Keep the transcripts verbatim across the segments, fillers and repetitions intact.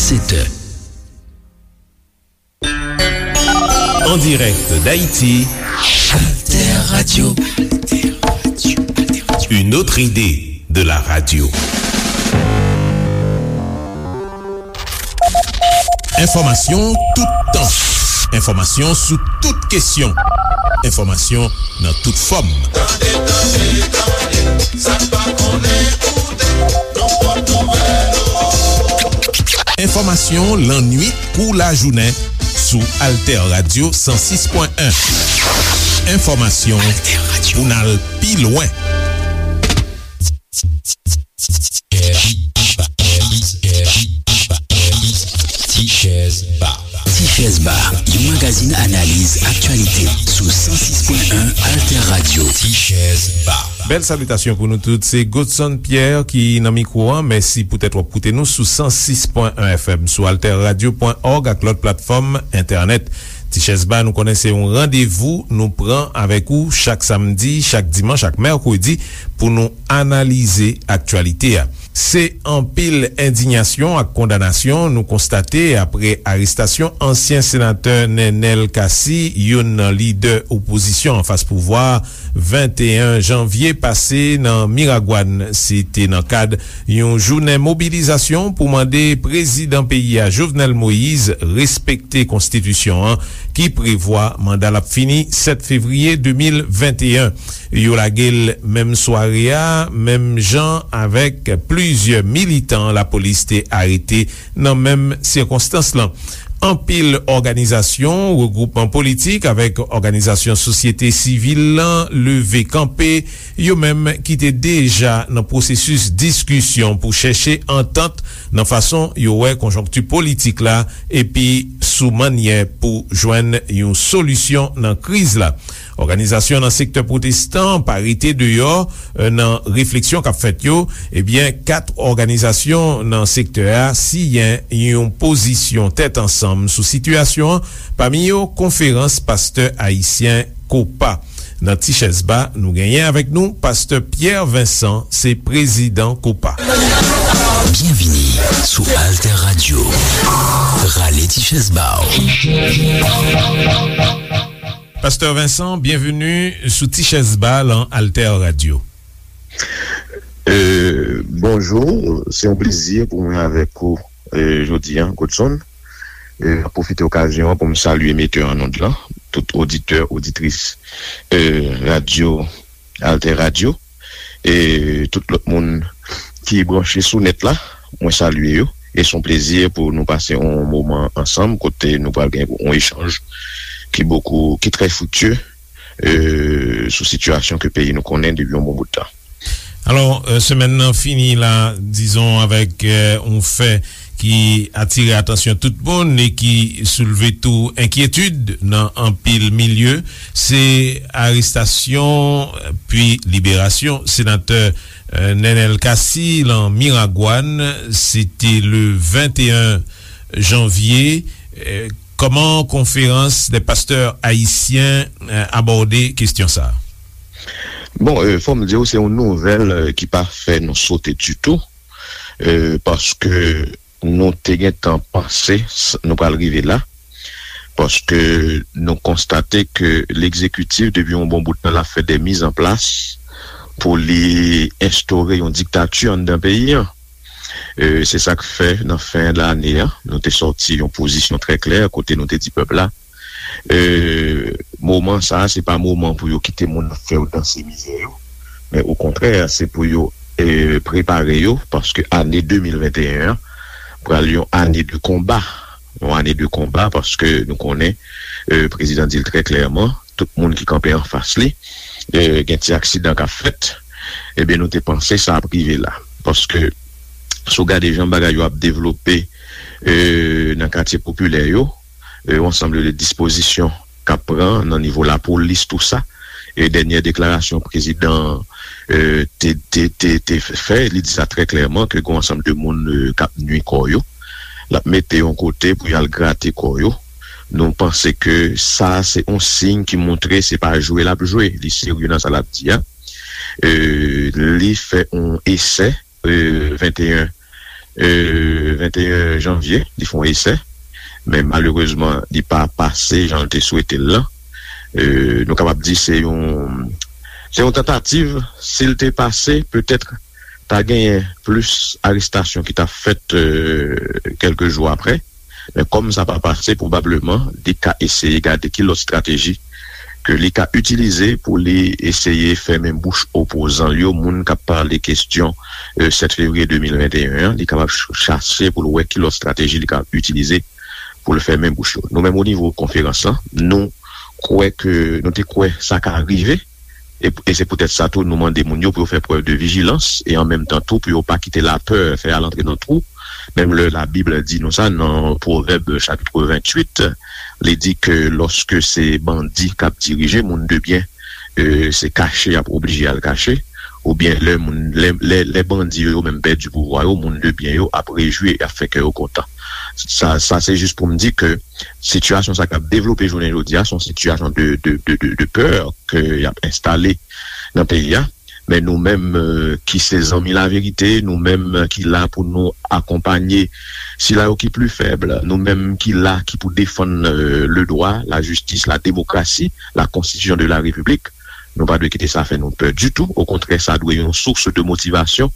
Sèt è. En direct d'Haïti, Alter Radio. Une autre idée de la radio. Enfòmasyon toutan. Enfòmasyon sou tout kesyon. Enfòmasyon nan tout fòm. Tande, tande, tande, sa n pa konnen koute, nan pòt nouvèl. Enfòmasyon lannuit kou lajounen sou Alter Radio san sis pwen en. Enfòmasyon pou n al pi lwen. Tichèz Ba. Tichèz Ba, yon magazin analiz aktyalite sou san sis pwen en Alter Radio. Tichèz Ba. Bèl salitasyon pou nou tout. Se Godson Pierre ki nan mikwo a. Mèsi poutèt w ap koute nou sou san sis pwen en F M, sou alter radio pwen org ak lòt platfòm entènèt. Tichèz Ba, nou konnen se yon randevou nou pran avèk ou chak samdi, chak dimanch, ak mèkredi pou nou analize aktyalite a. Se anpil endiyasyon ak kondanasyon nou konstate apre arestasyon ansyen senatè Nenel Cassy, youn nan lidè opozisyon anfas pouvwa, venteyen janvye pase nan Miragwàn. Se te nan kad yon jounen mobilizasyon pou mande prezidan peyi a, Jovenel Moïse, respekte konstitisyon an, ki prevwa manda l ap fini sèt fevriye de mil venteyen. Yo lage l menm sware a, menm jan avèk plizyè militan lapolis te arete nan menm sikonstans lan. Anpil òganizasyon, regwoupman politik avèk òganizasyon sosyete sivil lan leve kanpe, yo menm ki te deja nan pwosesis diskisyon pou chèche antant nan fason yo wè konjonkti politik la epi sou mannyè pou jwenn yon solisyon nan kriz la. Òganizasyon nan sektè pwotestan pa rete deyò, eh, nan refleksyon k ap fèt yo. Ebyen, kat òganizasyon nan sektè a siyen yon pozisyon tèt ansanm sou sitiyasyon an, pami yo Konferans Pastè Ayisyen, kopa. Nan Tichèz Ba, nou genyen avèk nou Pastè Pierre Vincent, se prezidan kopa. Byenvini sou Alter Radio. Rale Tichèz Ba w. Pastè Vincent, byenveni sou Tichèz Ba lan Alter Radio. Euh, bonjou, se yon plezi pou mwen avèk ou, euh, jodi a, Godson. Euh, m ap pwofite okazyon an pou m salye metè an onn lan, tout oditè, oditris, euh, radyo, Alter Radio, e tout lòt moun ki branche sou nèt la, mwen salye yo. E se yon plezi pou nou pase yon moman ansanm kote nou pral gen yon echanj ki bokou, ki trè friktye, euh, sou sitiyasyon ke peyi nou konnen depi yon bon bout tan. Alò, euh, semèn nan fini la, dizon, avèk, euh, yon fè ki atire atansyon tout moun e ki soulve tou enkyetid nan anpil milye, se arestasyon, euh, pi liberasyon senatè, euh, Nenel Cassy lan Miragwàn. Se te le venteyen janvye. Euh, kòman Konferans dè Pastè Ayisyen, euh, abòde kesyon sa a? Bon, euh, fò m di w, se yon nouvèl, euh, ki pa fè nou sote ditou, euh, paske nou te gentan panse s-, nou pral rive la, paske nou konstate ke legzekitif, depi yon bon bout tan, l ap fè de mizanplas pou li enstore yon diktati anndan peyi an. Euh, se sa k fè, nan fen lane a, nou te sòti yon pozisyon trè klè, kote nou te di pèp la, euh, moman sa a, se pa moman pou yo kite moun ap fè yo danse mizè yo, men okontrè, se pou yo, euh, prepare yo, paske ane de mil venteyen an pral yon ane de konba, yon ane de konba, paske nou konnen, euh, prezidan di l trè klèman, tout moun ki kanpe anfas li, euh, gen ti aksidan k ap fèt. Ebyen, nou te panse sa ap rive la, paske si w gade jan bagay yo ap devlope, euh, nan katye popilè yo, euh, yon ansanm de dispozisyon k ap pran nan nivo lapolis, tou sa. E dènyè deklarasyon prezidan, euh, te, te, te, te fè, li di sa trè klèman ke gen yon ansanm de moun, euh, k ap nui kò yo. L ap mete yon kote pou y al grate kò yo. Nou panse ke sa se yon siy ki montre se pa jwe l ap jwe, li serye nan sa l ap di a. Euh, li fè yon esè, euh, venteyen euh, venteyen janvye, li fè yon esè, men malerezman, li pa pase jan l te swete l lan. Euh, nou kapab di se yon, se yon tantativ, si l te pase, petèt ta genyen plis arestasyon ki ta fèt, euh, kèlke jou apre. Men kòm sa pa pase, pwobableman, li ka eseye gade ki lòt estrateji ke li ka itilize pou li eseye fèmen bouch opozan l yo, moun k ap pale kesyon, euh, sèt fevriye de mil venteyen an, li kapab ch-, chache pou l wè ki lòt estrateji li ka itilize pou l fèmen bouch yo. Nou menm, o nivo konferans lan, nou kwè ke, nou te kwè sa ka rive, e, e se poutèt sa tou nou mande moun yo pou yo fè prèv de vijilans e an menm tan tou pou yo pa kite lapè fè al antre nan twou. Menm lè Labib di nou sa nan Pwovèb chapit venntuit, li di ke lòske se bandi k ap dirije, moun de byen, e, se kache y ap oblije al kache, oubyen lè moun, lè, lè, lè bandi yo, yo menm pèdi pouvwa yo, moun de byen yo ap rejwi, y ap fè kè yo kontan. Sa, sa se jis pou m di ke sitiyasyon sa k ap devlope jounen jodi a, se yon sitiyasyon de, de, de, de, de pè ke y ap enstale nan peyi a. Men nou menm, euh, ki se zanmi laverite, nou menm ki la pou nou akonpanye sila yo ki pli fèb, nou menm ki la ki pou defann, euh, le droit, la justice, la démocratie, la constitution de la République, nou pa dwe kite sa fè nou pè ditou. Okontrè, sa dwe yon sous de motivasyon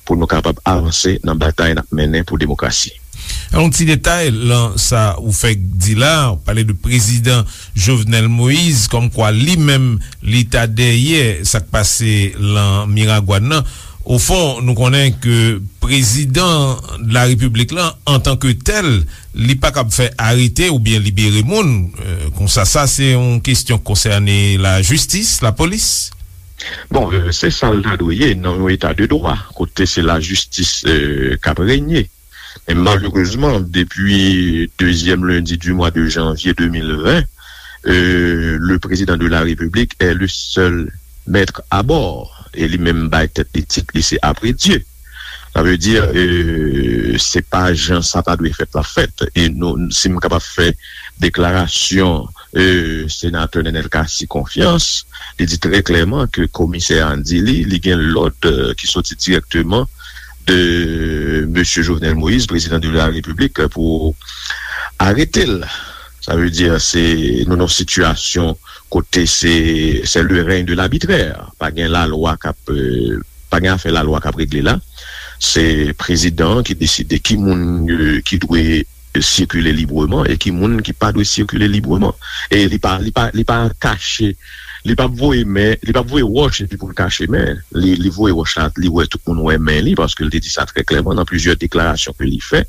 pou nou kapab avanse nan batay n ap mennen pou demokrasi. Yon ti detay lan sa ou fèk di la, ou pale de prezidan Jovenel Moïse, kòmkwa li menm, li ta dèyè sa k pase lan Miragwàn nan. Ofon, nou konnen ke prezidan de la repiblik lan, antanke tèl, li pa kab fè arete oubyen libere moun. Euh, konsa, sa se yon kesyon k konsène lajistis, lapolis. Bon, euh, se sa l ta dwe ye nan yon eta de dwa, kote se lajistis, euh, k ap renye. Men malerezman, depi dezyèm lendi di mwa de janvye de mil ven, euh, le président de la République est le seul maître à bord. E li menm bay tèt li tit, li se après Dieu. Sa vle di, euh, se pa jan sa ta dwe fèt la fèt. E nou, si m kapab fè deklarasyon, euh, senatè Nenel Cassy konfyans, li di trè klèman ke komisè a di li, li gen lòd, euh, ki soti dirèkteman de mesye Jovenel Moïse, président de la République, pou arete l. Sa vle di, se, nou nan sitiyasyon kote se, c'est le règne de l'arbitraire. Pa gen lalwa k ap, euh, pa gen afè lalwa k ap regle la. Se prezidan an ki deside ki moun, euh, ki dwe sikile libreman e ki moun ki pa dwe sikile libreman. E li pa, li pa, li pa kache, li p ap voye men, li p ap voye wòch epi pou l kache men. Li, li voye wòch la, li wè tout moun wè men li, paske l te di sa trè klèman nan plizyè deklarasyon ke li fè.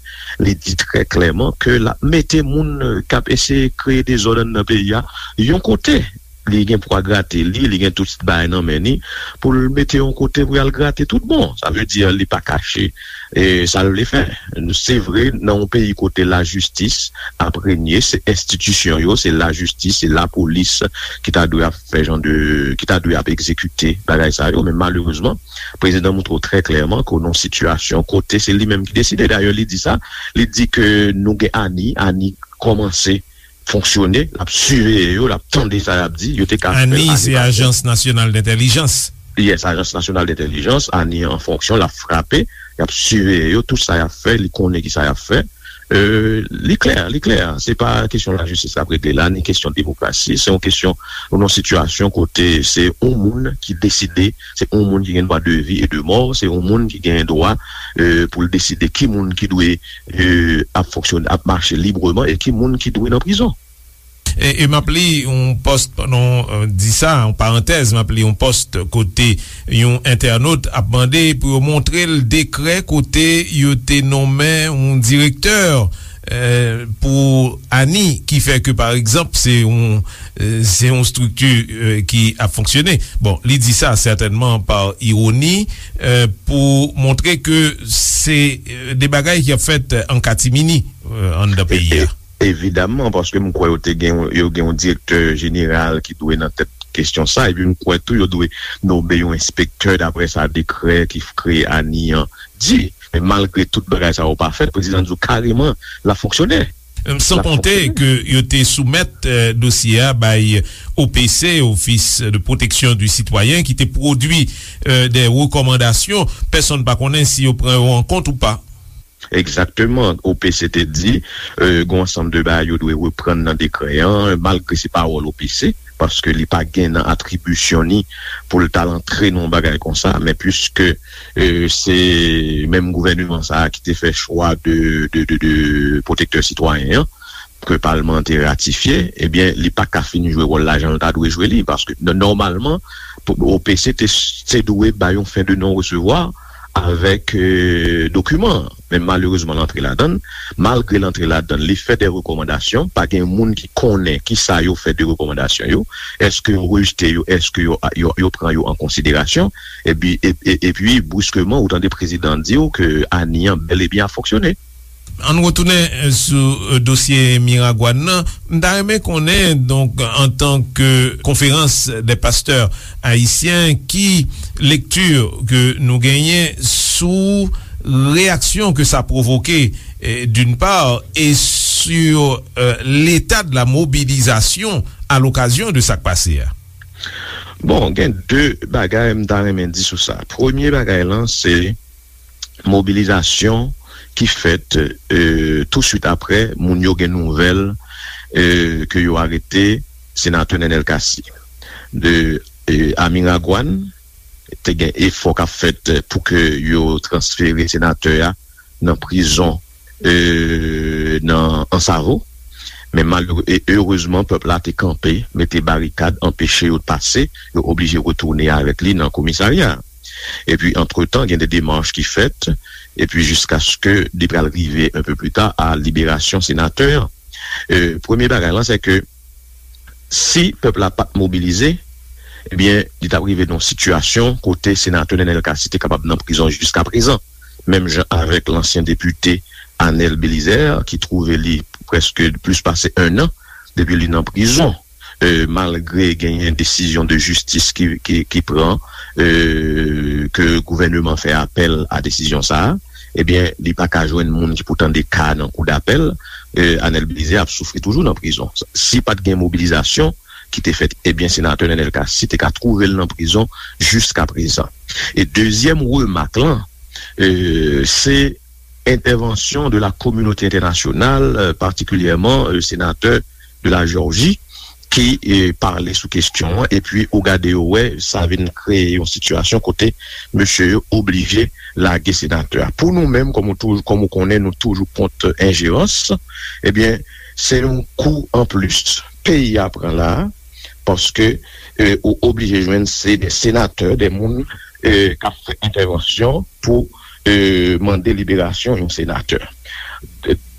Li di trè klèman ke l ap mete moun, euh, k ap eseye kreye dezòd anndan peyi a yon kote. Li gen pwa grate li, li gen tout bagay nan men li, pou l mete yon kote pou y al grate tout bon. Sa vle di, li pa kache, e, sa l vle fè. Se vre, nan yon peyi kote lajistis ap renye, se enstitisyon yo, se lajistis, se lapolis ki ta dwe ap fè jan de, ki ta dwe ap egzekite bagay sa yo, men malerezman, prezidan montre w trè klèman ke w nan yon sitiyasyon kote se li menm ki deside. Dayè, li di sa, li di ke nou gen ANI, ANI kòmanse fonksyone, l ap siveye yo, l ap tande sa y ap di, yo te ka fè l. ANI, se Ajans Nasyonal Dentèlijans. Yes, Ajans Nasyonal Dentèlijans, ANI an fonksyon, l ap frape, y ap siveye yo, tout sa y ap fè, li konnen ki sa y ap fè. Euh, li klè, li klè. Se pa kesyon lajistis k ap regle la, ni kesyon demokrasi. Se yon kesyon, nou nan yon sitiyasyon kote se yon moun ki deside, se yon moun ki gen dwa de vi e de mò, se yon moun ki gen dwa, euh, pou l deside ki moun ki dwe, euh, ap fonksyone, ap mache libreman e ki moun ki dwe nan prizon. E, e m ap li yon pòs, pandan w, euh, di sa, yon parantèz, m ap li yon pòs kote yon entènot ap mande pou yo montre l dekrè kote yo te nonmen yon direktè, euh, pou ANI, ki fè ke, pa egzanp, se yon, euh, se yon estrikti, euh, ki ap fonksyone. Bon, li di sa sètènman pa iwoni, euh, pou montre ke se, euh, de bagay ki ap fèt an katimini, euh, anndan peyi a. Evidamman, paske m kwè yo te gen, yo gen yon direktè jeneral ki dwe nan tèt kesyon sa, epi m kwè tou yo dwe nonmen yon enspektè, daprè sa dekrè ki f-, kreye ANI an di. Men malgre tout bagay sa yo pa fèt, prezidan di w kareman l ap fonksyone. San konte ke yo te soumèt, euh, dosye a bay O P C, Office de Protection du Citoyen, ki te pwodui, euh, de rekòmandasyon. Pèsonn pa konnen si yo pran yo an kont ou pa. Egzakteman. O P C te di, e, gen yon ansanm de bagay yo dwe reprann nan dekrè an, malgre se pawòl O P C, paske li pa gen nan atribisyon ni pou l t al antre nan yon bagay konsa, men piske, e, se menm gouvèneman sa a ki te fè chwa de, de, de, de pwotektè sitwayen an, ke palman an te ratifye, ebyen, li pa ka fin jwe wòl la jan l ta dwe jwe li, paske n-, nòmalman, pou, O P C te, te dwe bay yon fen de non resevwa avèk, e, dokiman an. Men malerezman, l antre ladan l. Malgre l antre ladan l, li fè de rekòmandasyon. Pa gen moun ki konnen ki sa yo fè de rekòmandasyon yo. Èske yo rejte yo? Èske yo, yo, yo pran yo an konsiderasyon? Epi, e, e, epi, briskeman, ou tande prezidan an di w ke ANI an bèl e byen ap fonksyone. Ann retounen, eh, sou, eh, dosye Miragwàn nan. M ta renmen konnen, donk, antanke Konferans dè Pastè Ayisyen, ki lekti ke nou genyen sou reyaksyon ke sa pwovoke, eh, d'une part, et sur, eh, l'état de la mobilisation à l'occasion de sa k pase a? Bon, gen de bagay m ta renmen di sou sa. Premye bagay lan, se mobilizasyon ki fèt, e, touswit aprè moun yo gen nouvèl, e, ke yo arete senatè Nenel Cassy. De, e, a Miragwàn, te gen efò k ap fèt pou ke yo transfere senatè a nan prizon, e, nan Ansavo. Men malere-, e, erezman, pèp la te kanpe, mete barikad, anpeche yo pase, yo oblije retounen avèk li nan komisarya. Epi, antretan, gen de demach ki fèt, epi jiskaske li pral rive un peu plus tard a liberasyon senatè an. E, premye bagay lan, se ke si pèp la pa t mobilize, ebyen, li t ap rive nan yon sitiyasyon kote senatè Nenel Cassy te kapab nan prizon jiskaprezan, menm jan avèk lansyen depite Anel Belizaire, ki twouve li prèske plis pase en an depi li nan prizon. E, malgre genyen desizyon de jistis ki, ki, ki pran, e, ke gouvèneman fè apèl a desizyon sa a, ebyen, li pa ka jwenn moun ki pou tande ka nan kou dapèl, e, Anel Belizaire ap soufri toujou nan prizon. Si pa t gen mobilizasyon ki te fèt, ebyen, senatè Nenel Cassy te ka twouve l nan prizon jiskaprezan. E dezyèm remak lan, e, se entèvansyon de la kominote entènasyonal, e, patikilyèman, e, senatè de la Jòji, ki, e, pale sou kesyon an, epi ou gade yo wè, sa vin kreye yon sitiyasyon kote mesye yo oblije lage senatè a. Pou nou menm, kòm ou toujou, kòm ou konnen, nou toujou kont enjerans, ebyen, se yon kou anplis peyi a pran la a, paske, e, ou oblije jwenn se de senatè, de moun, e, k ap fè entèvansyon pou, e, mande liberasyon yon senatè.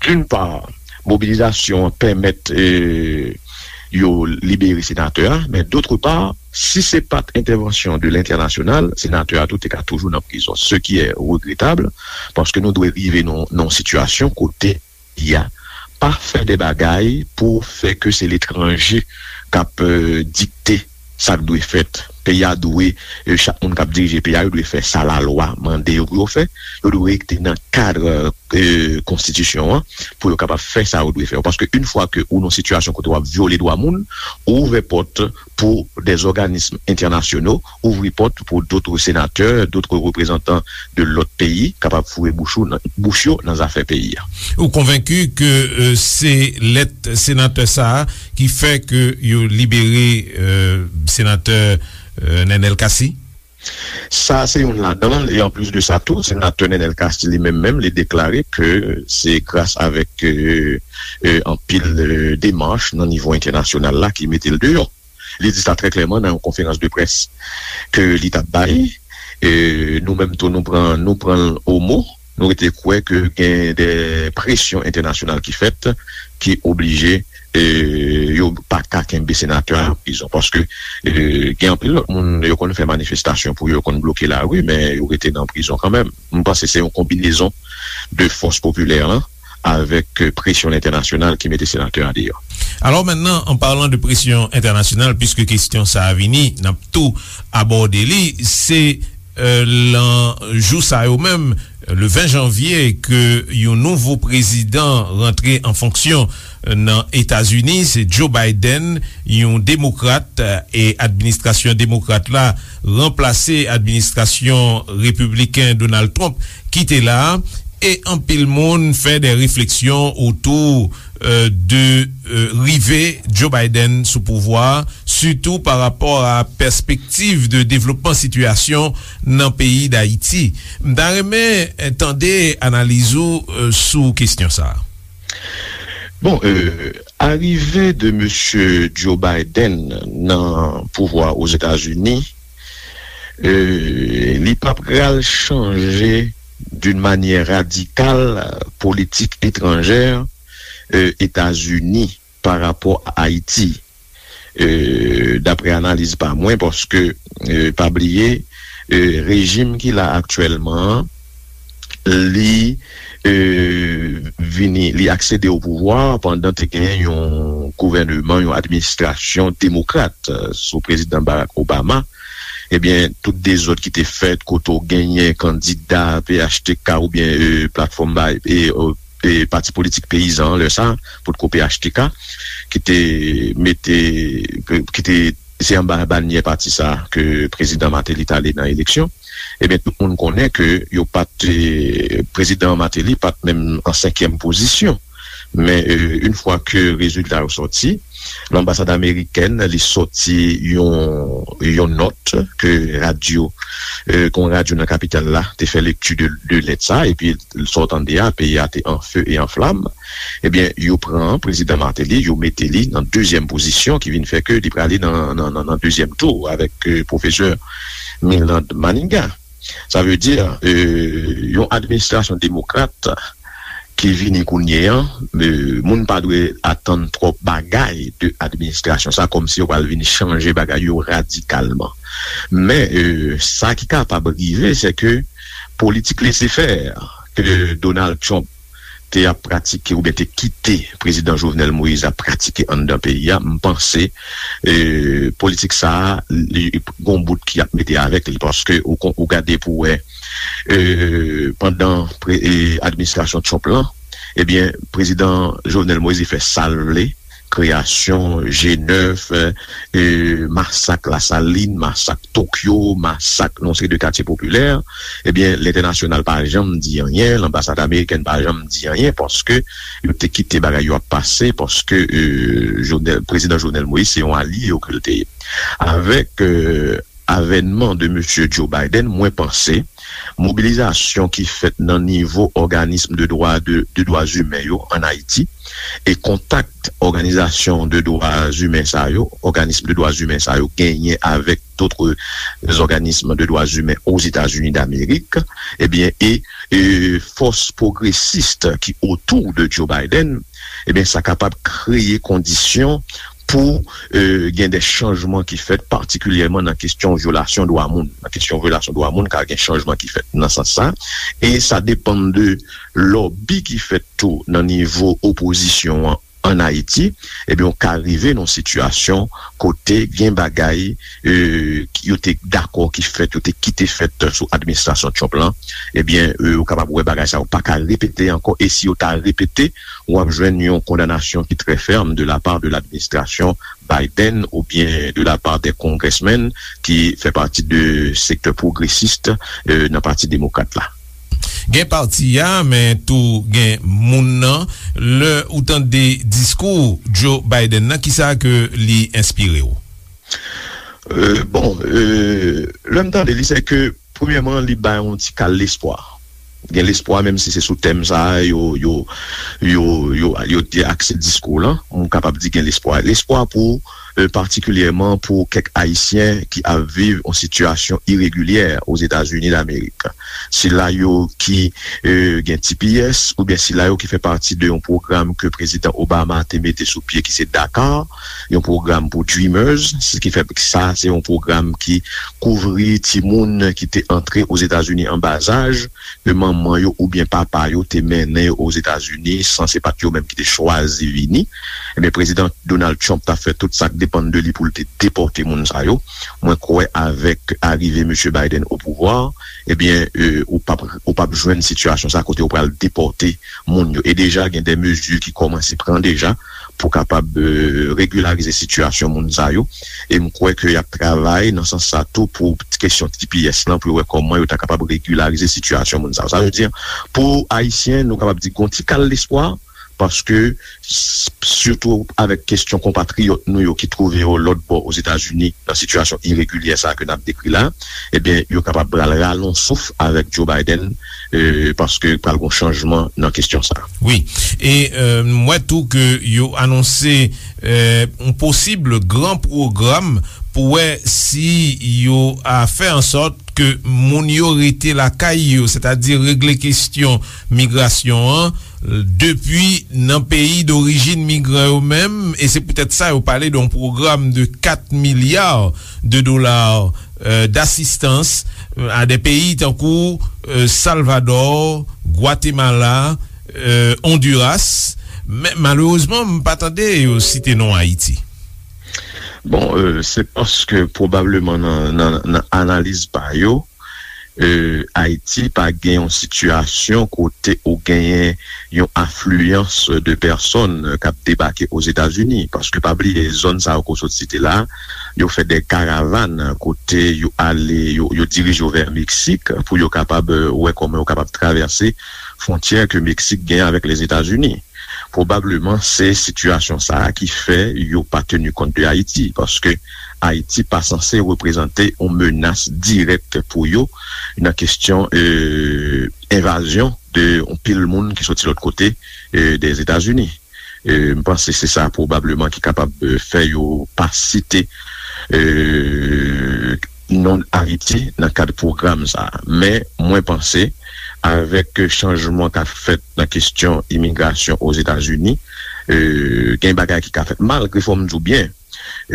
D'une part, mobilizasyon an pèmèt, e, yo libere senatè a, men d'autre part, si se pa t entèvansyon de lentènasyonal, senatè a tou te ka toujou nan prizon, ce qui est regrettable, paske nou dwe rive nan, nan yon sitiyasyon kote peyi a pa fè de bagay pou fè ke se letranje k ap, e, dikte sa k dwe fèt. Peyi a dwe, e, chak moun k ap dirije peyi a, yo dwe fè sa lalwa mande yo pou yo fè. Yo dwe rete nan kad, e, konstitisyon an pou yo kapab fè sa yo dwe fè. Paske yon fwa ke ou nan sitiyasyon kote w ap vyole dwa moun, ou ouvè pòt pou des organismes internationaux, ouvri pòt pou d'autres sénateurs, d'autres représentants de lòt peyi kapab foure bouch ou nan, bouch yo nan zafè peyi a. Ou konvenki ke, e, se lèt senatè sa a ki fè ke yo libere, e, senatè, e, Nenel Cassy? Sa se youn ladan l, e anplis de sa tou, senatè Nenel Cassy li menm menm, li deklare ke se gras avèk, e, e, anpil, e, demach nan nivo entènasyonal la ki mete l deyò. Li di sa trè klèman nan yon konferans de près ke li t ap bay. E, nou menm tou, nou pran, nou pran l o mo. Nou rete kwè ke gen de presyon entènasyonal ki fèt, ki oblije, e, yo pa ka kenbe senatè a nan prizon. Paske, e, gen anpil lòt moun, yo konn fè manifestasyon pou yo, konn bloke lari, men yo rete nan prizon kanmenm. M panse se yon konbinezon de fòs popilè lan avèk, e, presyon entènasyonal ki mete senatè a deyò. Alors maintenant, en parlant de pression internationale, puisque kesyon sa a vini, n ap tou abòde li, se, e, lan jou sa yo menm, le ven janvye, ke yon nouvo prezidan rantre an fonksyon, e, nan Etazini, se Joe Biden, yon demokrat, e, e administrasyon demokrat la ranplase administrasyon repibliken Donald Trump ki te la a. E anpil moun fè de refleksyon otou, euh, de, euh, rive Joe Biden sou pouvwa, sitou pa rapò a pèspektiv de devlopman sitiyasyon nan peyi Dayiti. M ta renmen, euh, tande analiz ou, euh, sou kesyon sa a. Bon, euh, arive de mesye Joe Biden nan pouvwa Ozetazini, euh, li pa pral chanje d'une manière radicale politik etranjè, euh, Etazini pa rapò a Ayiti. Euh, daprè analiz pa mwen, paske, euh, pa bliye, euh, rejim ki la aktyèlman an, li, euh, vini, li aksede o pouvwa pandan te gen yon gouvèneman, yon administrasyon demokrat, euh, sou prezidan Barack Obama. Ebyen, tout dezòd ki te fèt, kote w genyen kandida P H T K oubyen, euh, platfòm bay, e, euh, e pati politik peyizan an, lè sa, potko P H T K, ki te mete, ki te, se anba banyè pati sa ke prezidan Martelly t ale nan eleksyon. Ebyen, tout moun konnen ke yo pa t, e, prezidan Martelly pa t menm an senkyèm pozisyon. Men, e, yon fwa ke rezilta yo sòti, lanbasad amerikèn, li sòti yon, yon nòt ke radyo, e, ke yon radyo nan kapital la te fè lekti de, de lèt sa, epi sa w tande a, peyi a te an fe e an flam. Ebyen, yo pran prezidan Martelly, yo mete li nan dezyèm pozisyon, ki vin fè ke li prale nan, nan, nan, nan dezyèm tou avèk, e, pwofesè Milland Manigat. Sa vle di, e, yon administrasyon demokrat ki vini kounye a, e, moun pa dwe atann twòp bagay de administrasyon sa, kòmsi yo pral vin chanje bagay yo radikalman. Men, e, sa ki kapab rive, se ke politik lese fè ke Donald Trump te ap pratike oubyen te kite prezidan Jovenel Moïse ap pratike anndan peyi a, m panse, e, politik sa a, li gon bout ki ap mete avèk li, paske ou kon, ou gade pou wè, e, pandan pre-, e, administrasyon Trump lan, ebyen, prezidan Jovenel Moïse fè sa l vle, kreyasyon G nèf, e, e, masak Lasalin, masak Tokyo, masak nan yon seri de katye popilè, ebyen, lentènasyonal pa janm di anyen, lanbasad amerikèn pa janm di anyen, paske yo te kite bagay yo ap pase, paske, e, Jovenel, prezidan Jovenel Moïse se yon alye yo ke l te ye. Avèk, e, avènman de mesye Joe Biden, mwen panse mobilizasyon ki fèt nan nivo òganism de dwa, de, de dwa imen yo ann Ayiti, e kontak òganizasyon de dwa imen sa yo, òganism de dwa imen sa yo genyen avèk dòt òganism de dwa imen Ozetazini Damerik, ebyen, e, e fòs pwogresis ki otou de Joe Biden, ebyen, sa kapab kreye kondisyon pou, e, gen de chanjman ki fèt, patikilyèman nan kesyon vyolasyon dwa moun. Nan kesyon vyolasyon dwa moun, ka gen chanjman ki fèt nan sans sa. E sa depann de lòbi ki fèt tou nan nivo opozisyon an ann Ayiti, ebyen, ou ka rive nan yon sitiyasyon kote gen bagay, e, ki yo te dakò ki fèt, yo te kite fèt sou administrasyon Trump lan, ebyen, e, ou kapab wè bagay sa yo pa ka repete ankò, e si yo ta repete, w ap jwenn yon kondanasyon ki trè fèm de la part de l'administration Biden oubyen de la part des congressmen ki fè pati de sektè pwogresis, e, nan Pati Demokrat la. Gen pati a, men tou gen moun nan. Lè ou tande diskou Joe Biden nan, kisa ke li enspire w? E, bon, e, lè m tande li, se ke, premyèman, li bay yon ti kal lespwa. Gen lespwa, menm si se sou tèm sa a, yo, yo, yo, yo, yo te akse diskou lan, m kapab di gen lespwa. Lespwa pou, e, patikilyèman pou kèk Ayisyen ki ap viv yon sitiyasyon iregilyè Ozetazini Damerik. Sila yo ki, e, gen T P S, oubyen sila yo ki fè pati de yon pwogram ke prezidan Obama te mete sou pye, ki se DACA, yon pwogram pou Dreamers, se ki fè sa, se yon pwogram ki kouvri timoun ki te antre Ozetazini an bazaj, ke manman yo oubyen papa yo te mennen yo Ozetazini, san se pa t yo menm ki te chwazi vini. Ebyen, prezidan Donald Trump t ap fè tout sa k depann de li pou l te depòte moun sa yo. Mwen kwè avèk arive mesye Biden o pouvwa, ebyen, e, ou p ap, ou p ap jwenn sitiyasyon sa kote yo pral depòte moun yo. E deja, gen de mezi ki kòmanse pran deja pou kapab, e, regilarize sitiyasyon moun sa yo. E m kwè ke y ap travay nan sans sa tou pou kesyon T P S lan, pou yo wè kòman yo ta kapab regilarize sitiyasyon moun sa yo. Sa vle di, pou Ayisyen, nou kapab di gon ti kal lespwa, paske, s- sitou avèk kesyon konpatriyòt nou yo ki twouve yo lòt bò Ozetazini nan sitiyasyon iregilyè sa a ke n ap dekri la, ebyen, yo kapab pral rale yon souf avèk Joe Biden, e, paske pral gon chanjman nan kesyon sa a. Wi. E, e, m wè tou ke yo anonse, e, yon posib gran pwogram pou wè si yo a fè an sòt ke moun yo rete lakay yo, sètadi regle kesyon migrasyon an, depi nan peyi dorijin migran yo menm, e se poutèt sa yo pale de yon pwogram de kat milya de dola, euh, d'asistans, euh, a de peyi tankou, euh, Salvador, Gwatemala, euh, Honduras. Men malerezman, m pa tande yo site non Ayiti. Bon, euh, se paske pwobableman nan, nan, nan analiz pa yo, euh, Ayiti pa gen yon sitiyasyon kote ou genyen yon afliyans de pèsòn k ap debake Ozetazini. Paske pa bliye, zòn sa yo ke w sot site la, yo fè de karavàn kote yo ale, yo, yo dirije yo vè Meksik pou yo kapab, euh, wè kòman yo kapab travèse fwontyè ke Meksik genyen avèk Lezetazini. Pwobableman, se sitiyasyon sa a ki fè yo pa teni kont de Ayiti, paske Ayiti pa sanse reprezante yon menas dirèk pou yo nan kesyon, euh, envazyon de yon pil moun ki soti lòt kote, euh, dèzetazini. Euh, m panse se sa pwobableman ki kapab, euh, fè yo pa site, euh, non Ayiti nan kad pwogram sa a. Men mwen panse, avèk chanjman k ap fèt nan kesyon imigrasyon Ozetazini, euh, gen bagay ki ka fèt, malgre, fò m di w byen,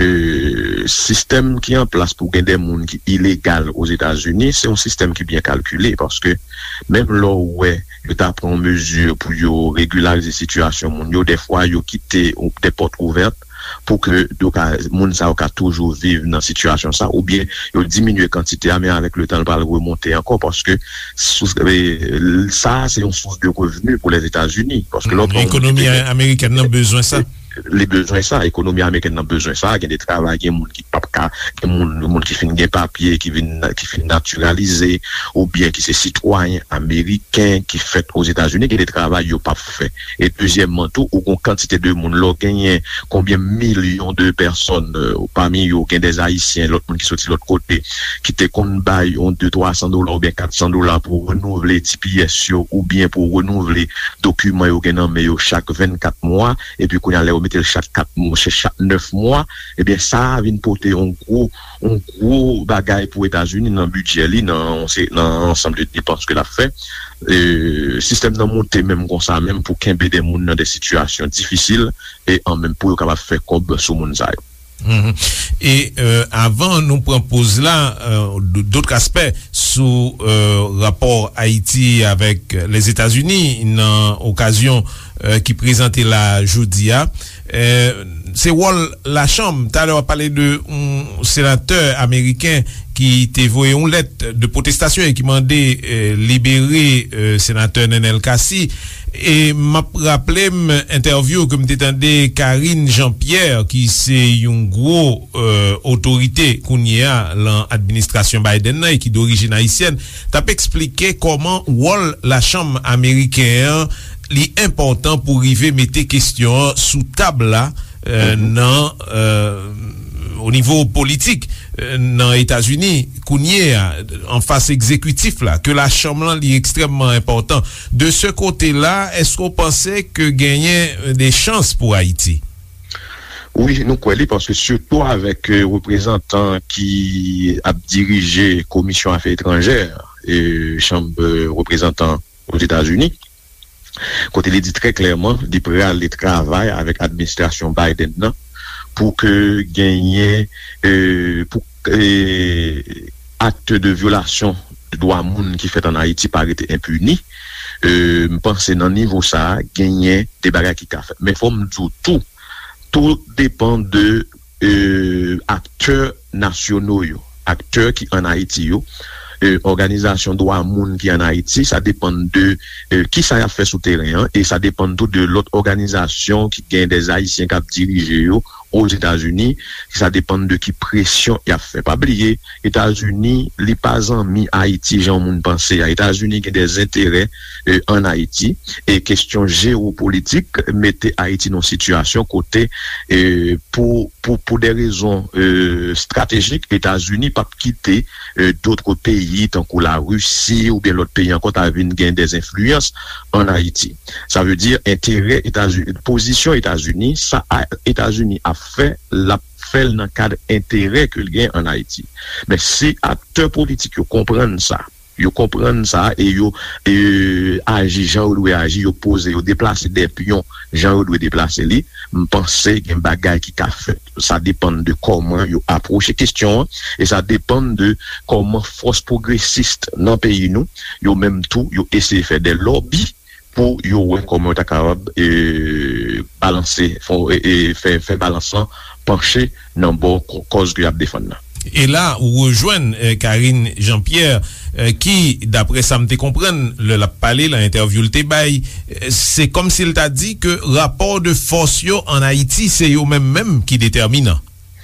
euh, sistèm ki an plas pou gen de moun ki ilegal Ozetazini, se yon sistèm ki byen kalkile, paske menm lè w wè yo ta pran yon mezi pou yo regilarize sitiyasyon moun yo, dèfwa yo kite de pòt ouvèt pou ke yo ka, moun sa yo ka toujou viv nan sitiyasyon sa, oubyen yo diminye kantite a, men avèk letan, l pral remonte ankò, paske sous, e, sa a se yon sous de revni pou Lezetazini, paske lè w pran yon moun ki te gen, ekonomi amerikèn nan bezwen sa. Li bezwen sa, ekonomi amerikèn nan bezwen sa, gen de travay, gen moun ki p ap ka, gen moun, moun ki fin gen papye, ki vin, ki fin natiralize, oubyen ki se sitwayen ameriken ki fèt Ozetazini, gen de travay yo p ap fè. E dezyèmman tou, ou gon kantite de moun, lè w genyen konbyen milyon de pèsòn, euh, pami yo gen de Ayisyen, lòt moun ki soti lòt kote, ki te konn bay yon de twa san dola oubyen kat san dola pou renouvle T P S yo, oubyen pou renouvle dokiman yo gen nan men yo chak vennkat mwa, epi kounye a, lè yo mete l chak kat mwa, chak nèf mwa, ebyen, sa a vin pote yon gwo, yon gwo bagay pou Etazini nan bidjè li, nan, nan ansanm de depans ke l ap fè. E, sistèm nan monte menm konsa, menm pou kenbe de moun nan de sitiyasyon difisil, e an menm pou yo kapab fè kòb sou moun sa yo. Mhm. E, euh, avan nou pran poz la, euh, d-, dòt aspè sou, euh, rapò Ayiti avèk Lèzetazini nan okazyon, euh, ki prezante la jodi a. Euh, se wòl lachanm. Talè w ap pale de yon senatè ameriken ki te voye yon lèt de pwotestasyon e ki mande, euh, libere, euh, senatè Nenel Cassy. E m ap raple m entèvyou ke m te tande Karine Jean-Pierre, ki se yon gwo, euh, otorite kounye a lan administrasyon Biden nan e ki dorijin ayisyèn, t ap eksplike kòman wòl lachanm ameriken an, li enpòtan pou rive mete kesyon an sou tab la, euh, nan, euh, o nivo politik, euh, nan Etazini, kounye a, an fas egzekitif la, ke lachanm lan li ekstrèmman enpòtan. De se kote la, èske w panse ke genyen, euh, de chans pou Ayiti? Wi, nou kwè li, paske sitou avèk, euh, reprezantan ki ap dirije Komisyon Afè Etranjè, euh, Chanm, euh, Reprezantan Ozetazini, kote li di trè klèman li prale travay avèk administrasyon Biden nan pou ke genyen, euh, pou, euh, akt de vyolasyon de dwa moun ki fèt an Ayiti pa rete enpini. Euh, m panse nan nivo sa a, genyen de bagay ki ka fèt. Men fò m di w tou, tou depann de, euh, aktè nasyono yo, aktè ki an Ayiti yo, e, òganizasyon dwa moun ki ann Ayiti, sa depann de, e, kisa y ap fè sou teren an, e sa depann tou de lòt òganizasyon ki gen dè Ayisyen k ap dirije yo Ozetazini, sa depann de ki presyon y ap fè. Pa bliye, Etazini, li pa zanmi Ayiti jan moun panse a. Etazini gen dè enterè, e, ann Ayiti, e kestyon jewopolitik mete Ayiti nan sitiyasyon kote, e, pou, pou, pou de rezon, e, estratejik, Etazini p ap kite, e, dòt peyi tankou Larisi oubyen lòt peyi ankò ta vin gen dè enfliyans ann Ayiti. Sa vle di enterè Etazini, pozisyon Etazini, sa a, Etazini ap fè, l ap fè l nan kad enterè ke l gen ann Ayiti. Men si aktè politik yo konprann sa, yo konprann sa e yo, e, aji jan yo dwe aji, yo poze, yo deplase de pyon jan yo dwe deplase li, m panse gen bagay ki ka fèt. Sa depann de kòman yo apwoche kestyon an, e sa depann de kòman fòs pwogresis nan peyi nou, yo menm tou, yo eseye fè de lòbi pou yo wè kòman yo ta kapab, e, balanse, fè, e, e, fè, fè balans lan panche nan bò kò-, kòz ke y ap defann nan. E la, ou rejwenn, e, Karine Jean-Pierre, e, ki, daprè sa m te konprann, lè l ap pale, nan entèvyou l te bay, e, se kòmsi l ta di ke rapò de fòs yo ann Ayiti, se yo menm menm ki detèminan.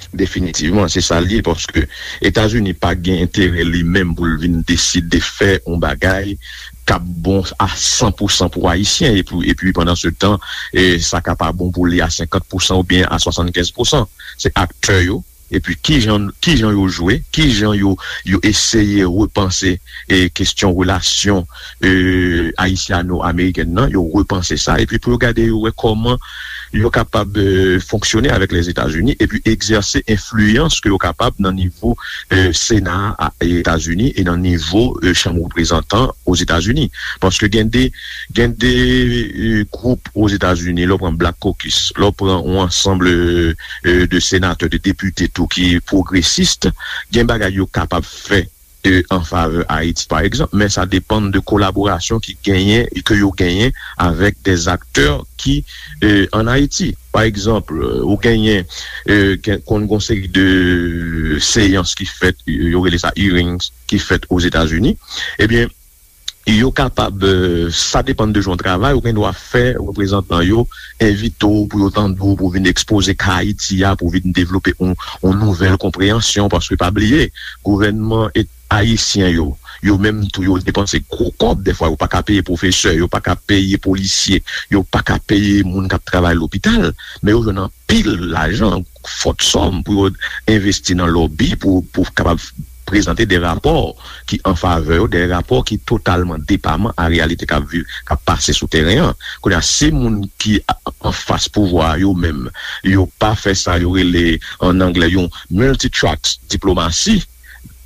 Definitivman, se sa l ye, paske Etazini pa gen enterè li menm pou l vin deside fè yon bagay k ap bon a san pou san pou Ayisyen, epi, epi pandan se tan, e, sa ka pa bon pou li a senkant pou san oubyen a swasannkenz pou san. Se aktè yo, epi kijan, kijan yo jwe, kijan yo, yo eseye repanse, e, kestyon relasyon, e, ayisyano-amerikèn nan, yo repanse sa, epi pou yo gade, yo wè kòman yo kapab, e, fonksyone avèk Lèzetazini, epi egzèse enfliyans ke yo kapab nan nivo, e, Sena a, a Etazini e nan nivo, e, Chanm Reprezantan Ozetazini. Paske gen de, gen de, e, gwoup Ozetazini, lè w pran Black Caucus, lè w pran yon ansanm, e, e, de senatè, de depite tou ki pwogresis, gen bagay yo kapab fè, e, an favè Ayiti, pa egzanp, men sa depann de kolaborasyon ki genyen, ke yo genyen avèk de aktè ki, e, ann Ayiti. Pa egzanp, e, ou genyen, e, gen, konn gon seri de seyans ki fèt, yo rele sa hearings, ki fèt Ozetazini. Ebyen, yo kapab, e, sa depann de jan w travay, ou gen dwa fè reprezantan yo envite w pou yo tande w, pou w vin ekspoze ka Ayiti a, pou w vin devlope yon, yon nouvèl konpreyansyon, paske pa bliye, gouvènman et-, ayisyen yo, yo menm tou, yo depanse gwo kòb, dèfwa yo pa ka peye pwofesè, yo pa ka peye polisye, yo pa ka peye moun k ap travay lopital, men yo jwenn anpil lajan, fòt sòm pou yo envesti nan lòbi, pou, pou kapab prezante de rapò ki an favè yo, de rapò ki totalman depaman a reyalite k ap viv, k ap pase sou teren an. Kounye a, si moun ki a-, anfas pouvwa a yo menm, yo pa fè sa yo rele, an anglè, yon multi-track diplomasi,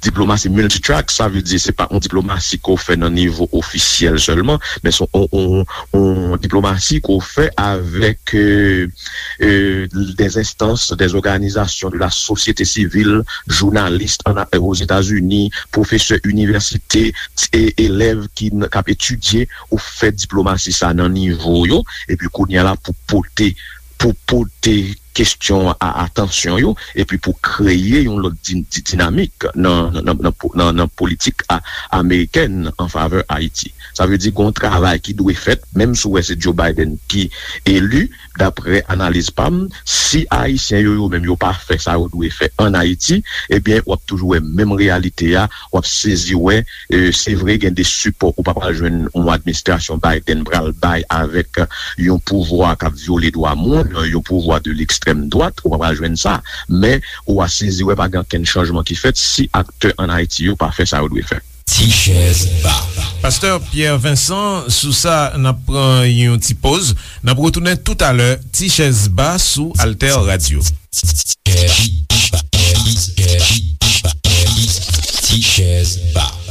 diplomasi multi-track, sa vle di se pa yon diplomasi ke w fè nan nivo ofisyèl sèlman, men se yon, yon, yon diplomasi ke w fè avèk, e, e, des instances, des organisations de la société civile, jounalis ann, Ozetazini, pwofesè inivèsite, e, elèv ki n-, k ap etidye, ou fè diplomasi sa nan nivo yo, epi kounye a la pou pote, pou pote kestyon a atansyon yo, epi pou kreye yon lòt di-, di-, dinamik nan, nan, nan, nan po-, nan, nan politik a-, amerikèn an favè Ayiti. Sa vle di gen yon travay ki dwe fèt, menm si w wè se Joe Biden ki eli, daprè analiz pa m, si Ayisyen yo, yo menm yo pa fè sa yo dwe fè ann Ayiti, ebyen, w ap toujou wè menm reyalite a, w ap sezi wè, e, se vre gen de sipò ou pa pral jwenn yon administrasyon Biden pral bay avèk yon pouvwa k ap vyole dwa moun, yon pouvwa de lekstrèm dwat, ou pa pral jwenn sa. Men, ou a sezi wè pa gen okenn chanjman ki fèt si aktè ann Ayiti yo pa fè sa yo dwe fè. Ti chèz ba. Pastè Pierre Vincent, sou sa, n ap pran yon ti poz. N ap retounen toutalè, Ti chèz ba sou Alter Radio. Ti chèz ba.